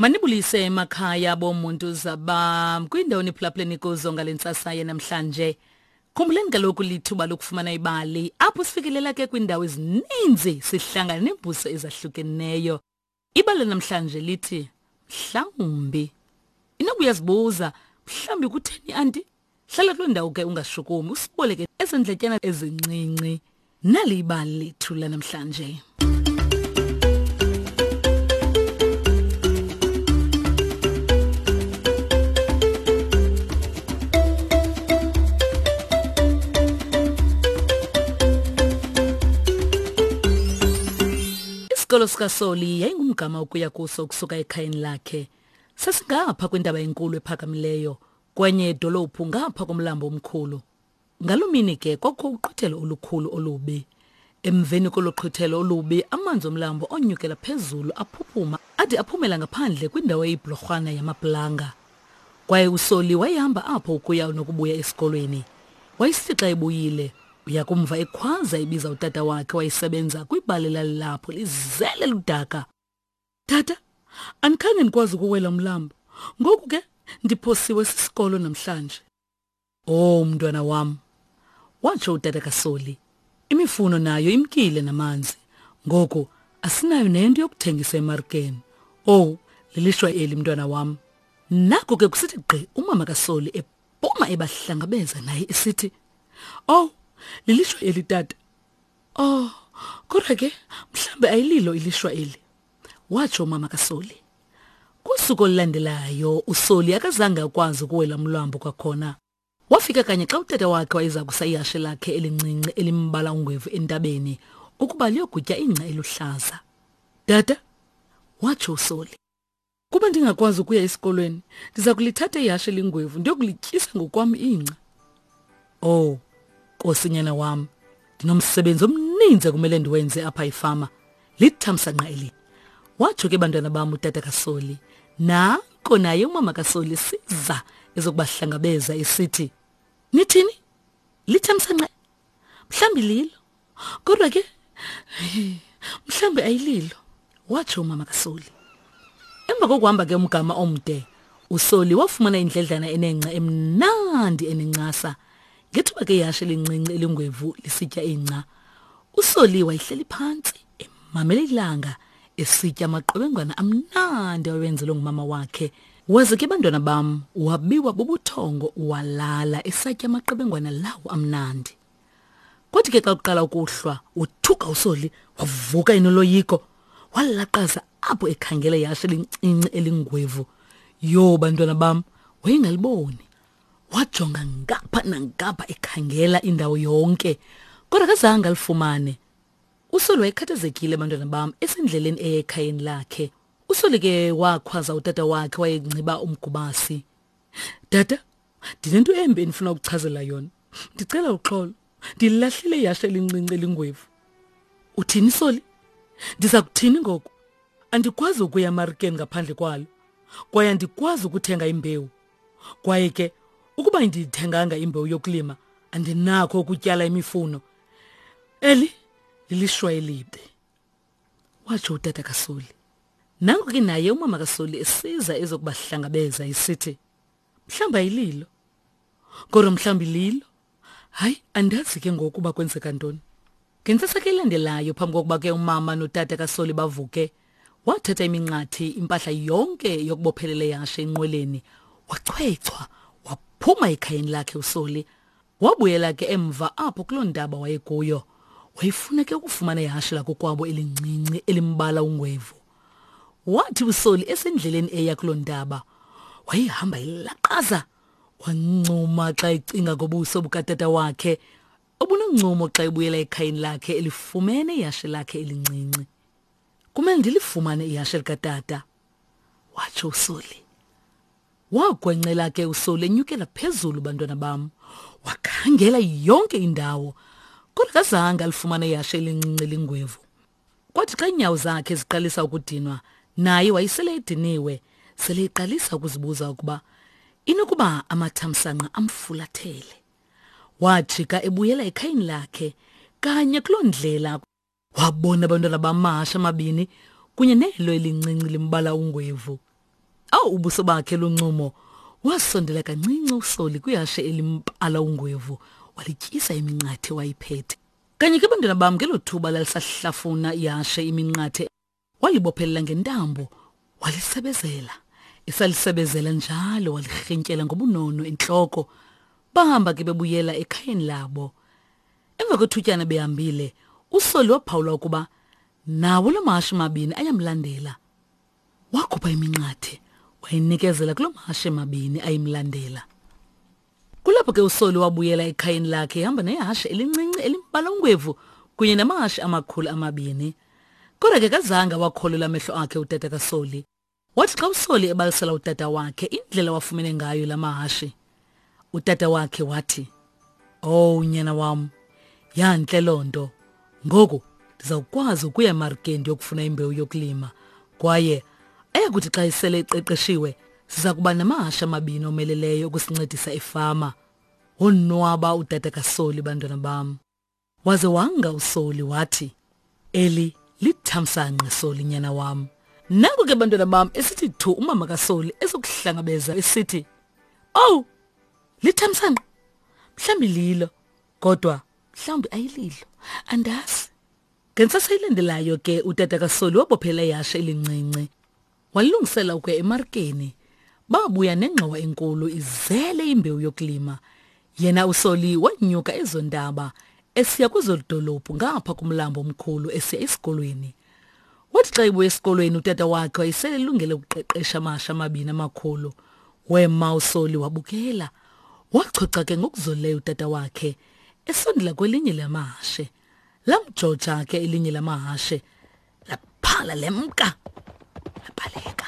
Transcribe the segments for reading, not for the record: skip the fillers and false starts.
Manibulise emakhaya bomuntu zabam kwindawo niphulaphuleni kuzo ngale ntsasa yanamhlanje. Khumbuleni kaloku lithuba lokufumana ibali apho sifikelela ke kwiindawo ezininzi sihlangana neembuso ezahlukeneyo. Ibali namhlanje lithi mhlawumbi. Inoba uyazibuza mhlawumbi kutheni anti? Hlala kuloo ndawo ke ungashukumi usiboleke ezendletyana ezincinci. Nali ibali lethu lanamhlanje. Isikolo sikaSoli yayingumgama ukuya kuso ukusuka ekhayeni lakhe. Sasingapha kwintaba enkulu ephakamileyo, kwenye idolophu ngapha komlambo omkhulu. Ngaloo mini ke kwakukho uqhwithelo olukhulu olubi. Emveni kolo qhwithelo olubi, amanzi omlambo onyukela phezulu aphuphuma ade aphumela ngaphandle kwindawo eyibhlorhwana yamaplanga. Kwaye uSoli wayehamba apho ukuya nokubuya esikolweni. Wayesithi xa ebuyile, uya kumva ekhwaza ebiza utata wakhe wayesebenza kwibali elalilapho lizele ludaka. Tata, andikhange ndikwazi ukuwela umlambo. Ngoku ke ndiphosiwe sisikolo namhlanje. Oh mntwana wam, watsho utata kaSoli. Imifuno nayo imkile namanzi. Ngoku asinayo nento yokuthengisa emarikeni. Oh, lilishwa eli mntwana wam. Nako ke kusithi gqi umama kaSoli ephuma ebahlangabeza naye esithi, "Oh, lilishwa eli tata. Oh, kodwa ke mhlambe ayililo ilishwa eli." Watsho umama kaSoli. Kusuku olulandelayo uSoli akazange akwazi ukuwela umlambo kwakhona. Wafika kanye xa utata wakhe wayeza kusa ihashe lakhe elincinci elimbala ungwevu entabeni ukuba liyogutya ingca eluhlaza. Tata, watsho uSoli. Kuba ndingakwazi ukuya esikolweni, ndiza kulithatha ihashe elingwevu ndiyokulityisa ngokwam ingca. Oh, Nkosi nyana wam, ndinomsebenzi omninzi ekumele ndiwenze apha efama. Lithamsanqa eli. Watsho ke bantwana bam utata kaSoli. Nanko naye umama kaSoli siza ezokubahlangabeza esithi, Nithini? Lithamsanqa? Mhlawumbi lilo. Kodwa ke mhlawumbi ayililo, watsho umama kaSoli. Emva kokuhamba ke umgama omde, uSoli wafumana indledlana enengca emnandi enencasa. Ngethuba ke ihashe elincinci elingwevu lisitya ingca, uSoli wayehleli phantsi emamele ilanga esitya amaqebengwana amnandi awayenzelwe ngumama wakhe. Waze ke bantwana bam wabiwa bubuthongo walala esatya amaqebengwana lawo amnandi. Kwathi ke xa kuqala ukuhlwa, wothuka uSoli wavuka enoloyiko. Walaqaza apho ekhangela ihashe elincinci elingwevu. Yho bantwana bam, wayengaliboni. Wajonga ngapha nangapha ekhangela indawo yonke, kodwa akazange alifumane. USoli wayekhathazekile bantwana bam esendleleni eya ekhayeni lakhe. USoli ke wakhwaza utata wakhe wayengciba umgubasi. Tata, ndinento embi endifuna ukuchazela yona. Ndicela uxolo. Ndilahlile ihashe elincinci elingwevu. Uthini Soli? Ndiza kuthini ngoku? Andikwazi ukuya emarikeni ngaphandle kwalo. Kwaye andikwazi ukuthenga imbewu. Kwaye ke ukuba ndiyithenganga imbewu yokulima, andinakho ukutyala imifuno. Eli lilishwa elibi. Watsho utata kaSoli. Nanko ke naye umama kaSoli esiza ezokubahlangabeza esithi, mhlawumbi ayililo. Kodwa mhlawumbi lilo. Hayi, andazi ke ngoku uba kwenzeka ntoni. Ngentsasa ke elandelayo phambi kokuba ke umama notata kaSoli bavuke, wathatha iminqathi impahla yonke yokubophelela ihashe enqweleni, wachwechwa waphuma ekhayeni lakhe uSoli. Wabuyela ke emva apho kuloo ntaba wayekuyo. Wayefuna ke ukufumana ihashe lakokwabo elincinci elimbala ungwevu. Wathi uSoli esendleleni eya kuloo ntaba, wayehamba elaqaza. Wancuma xa ecinga ngobuso bukatata wakhe obunoncumo xa ebuyela ekhayeni lakhe elifumene ihashe lakhe elincinci. Kumele ndilifumane ihashe likatata, watsho uSoli. Wagwencela ke uSoli enyukela phezulu bantwana bam. Wakhangela yonke indawo, kodwa kazange alifumane ihashe elincinci elingwevu. Kwathi xa iinyawo zakhe ziqalisa ukudinwa, naye wayesele ediniwe, sele eqalisa ukuzibuza ukuba inokuba amathamsanqa amfulathele. Wajika ebuyela ekhayeni lakhe kanye kuloo ndlela wabona abantwana bamahashe amabini kunye nelo elincinci limbala ungwevu. Awu ubuso bakhe luncumo. Wasondela kancinci uSoli kwihashe elimpala ungwevu, walityisa iminqathe wayiphethe. Kanye ke bantwana bam ngelo thuba lalisahlafuna ihashe iminqathe walibophelela ngentambo walisebezela. Esalisebezela njalo walirhintyela ngobunono entloko. Bahamba ke bebuyela ekhayeni labo. Emva kwethutyana behambile, uSoli waphawula ukuba nawo la mahashe mabini ayamlandela. Wakhupha iminqathe wayinikezela kuloo mahashe mabini ayimlandela. Kulapho ke uSoli wabuyela ekhayeni lakhe ehamba nehashe elincinci elimbala ungwevu kunye namahashe amakhulu amabini. Kodwa ke kazange awakholelwa amehlo akhe utata kaSoli. Wathi xa uSoli ebalisela utata wakhe indlela wafumene ngayo la mahashe, utata wakhe wathi, "Owu nyana wam, yantle loo nto. Ngoku ndizawukwazi ukuya emarikeni ndiyokufuna imbewu yokulima kwaye ayakuthi xa isele iqeqeshiwe siza kuba namahashe amabini omeleleyo ukusincedisa efama. Wonwaba utata kaSoli bantwana bam. Waze wanga uSoli wathi, Eli lithamsanqa Soli nyana wam. Nanku ke bantwana bam esithi thu umama kaSoli ezokuhlangabeza esithi, "Owu, lithamsanqa. Mhlawumbi lilo, kodwa mhlawumbi ayililo. Andazi." Ngentsasa ilandelayo ke utata kaSoli wabophela ihashe elincinci Walungisela ukuya emarikeni. Babuya nengxowa enkulu izele imbewu yokulima. Yena uSoli wanyuka ezo ntaba esiya kwezo dolophu ngapha kumlambo omkhulu esiya esikolweni. Wathi xa ebuya esikolweni utata wakhe wayesele elungele ukuqeqesha amasha amabini amakhulu. Wema uSoli wabukela. Wachocha ke ngokuzolileyo utata wakhe esondela kwelinye lamahashe. Lamjoja ke elinye lamahashe laphala lemka labaleka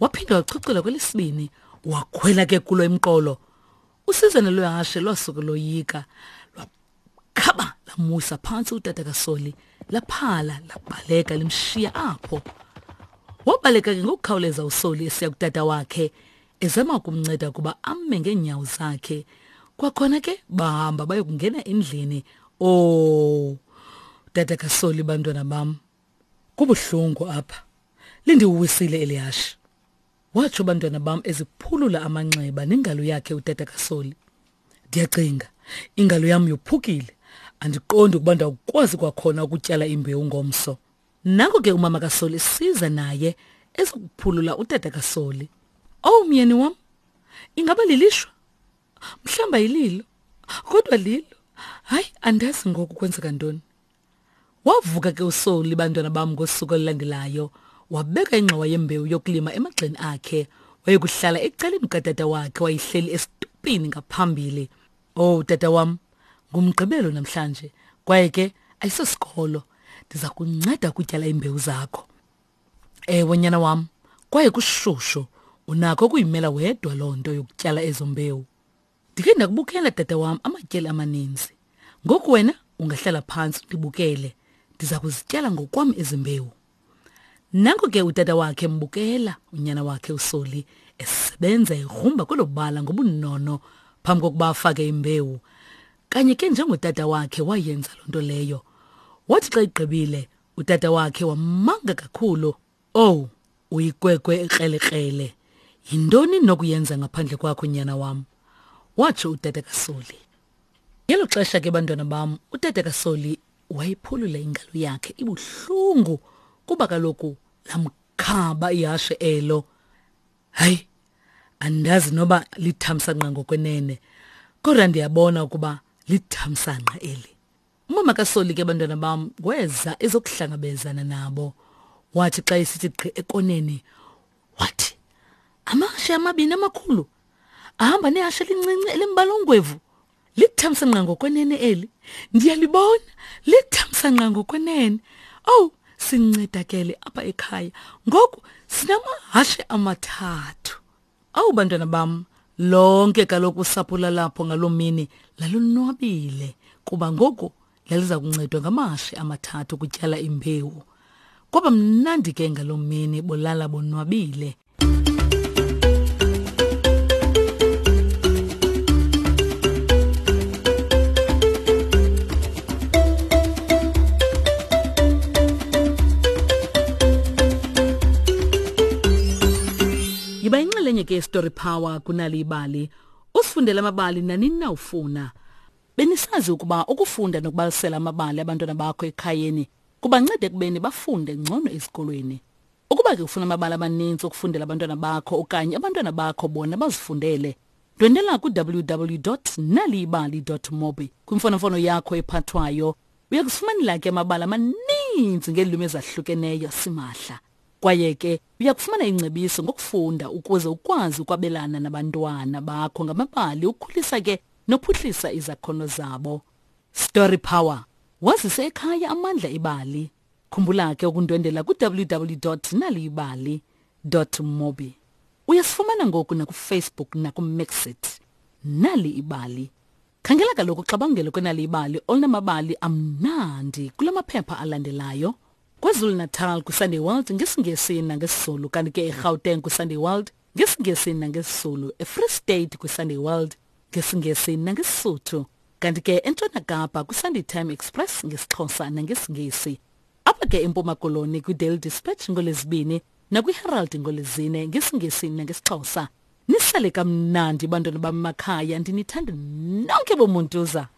waphinda wachuchela kwelesibini wakhwela ke kulo emqolo usizana lwehashe lwasuke loyika lwakhaba lamusa phantsi utata kasoli laphala labaleka limshiya apho wabaleka ke ngokukhawuleza usoli esiya kutata wakhe ezama ukumnceda ukuba ame ngeenyawo zakhe kwakhona ke bahamba bayokungena endlini oh tata kasoli bantwana bam kubuhlungu apha lindiwisile elihashe watsho bantwana bam eziphulula amanxeba nengalo yakhe utata kasoli ndiyacinga ingalo yam yophukile andiqondi ukuba ndawukwazi kwakhona ukutyala imbewu ngomso Nanko ke umama kaSoli siza naye ezokuphulula utata kaSoli. Oh myeni wam, ingaba lilishwa? Mhlamba yililo, kodwa lilo. Hayi, andazi ngoku kwenzeka ntoni. Wavuka ke uSoli bantwana bam ngosuku olulandelayo, wabeka ingxowa yembewu yokulima emagxeni akhe, wayekuhlala ecaleni kukatata wakhe wayehleli esitupini ngaphambili. Oh tata wam, ngumgqibelo namhlanje kwaye ke ayisosikolo. Ndiza kunceda ukutyala iimbewu zakho. Ewe nyana wam, kwaye kushushu unakho ukuyimela wedwa loo nto yokutyala ezo mbewu. Ndikhe ndakubukela tata wam amatyeli amaninzi. Ngoku wena ungahlala phantsi ndibukele. Ndiza kuzityala ngokwam ezi mbewu. Nanko ke utata wakhe embukela unyana wakhe uSoli esebenza egrumba kwelo bala ngobunono phambi kokuba afake imbewu. Kanye ke njengotata wakhe wayenza loo nto leyo. Wathi xa igqibile utata wakhe wamanga kakhulu. Owu, uyikwekwe ekrelekrele. Yintoni nokuyenza ngaphandle kwakho nyana wam? Watsho utata kaSoli. Ngelo xesha ke bantwana bam, utata kaSoli wayiphulula ingalo yakhe ibuhlungu kuba kaloku lamkhaba ihashe elo. Hayi, andazi noba lithamsanqa ngokwenene, kodwa ndiyabona ukuba lithamsanqa eli. Umama kaSoli ke bantwana bam weza ezokuhlangabezana nabo. Wathi xa esithi gqi ekoneni, wathi amahashe amabini amakhulu ahamba nehashe elincinci elimbala ongwevu. Lithamsanqa ngokwenene eli. Ndiyalibona, lithamsanqa ngokwenene. Owu, sincedakele apha ekhaya. Ngoku sinamahashe amathathu. Awu bantwana bam, lonke kaloku usapho lalapho ngaloo mini lalonwabile kuba ngoku laliza kuncedwa ngamahashe amathathu ukutyala imbewu. Kwaba mnandi ke ngaloo mini bolala bonwabile. Yiba yinxalenye ke yeStory Power kunali ibali. Usifundele amabali nanini na ufuna. Benisazi ukuba ukufunda nokubalisela amabali abantwana bakho ekhayeni kubanceda ekubeni bafunde ngcono ezikolweni. Ukuba ke ufuna amabali amaninzi okufundela abantwana bakho okanye abantwana bakho bona bazifundele, ndwendela ku-www.naliyibali.mobi kwimfonomfono yakho ephathwayo. Uya kuzifumanela ke amabali amaninzi ngeelwimi ezahlukeneyo simahla. Kwaye ke uya kufumana ingcebiso ngokufunda ukuze ukwazi ukwabelana nabantwana bakho ngamabali ukhulisa ke nophuhlisa izakhono zabo. Story Power. Wazise ekhaya amandla ebali. Khumbula ke ukundwendela ku-www.naliyibali.mobi. Uyasifumana ngoku nakuFacebook nakuMixit. Nali ibali. Khangela kaloku uxabangelo kwenali ibali olunamabali amnandi kula maphepha alandelayo. KwaZulu-Natal kwiSunday World ngesiNgesi nangesiZulu kanti ke eGauteng kwiSunday World ngesiNgesi nangesiZulu, eFree State kwiSunday World ngesiNgesi nangeSisuthu kanti ke eNtshona Kapa kwiSunday Time Express ngesiXhosa nangesiNgesi. Apha ke eMpuma Koloni kwiDaily Dispatch ngoLwezibini nakwiHerald ngoLwezine ngesiNgesi nangesiXhosa. Nisale kamnandi bantwana bam makhaya ndinithanda nonke bomuntuza.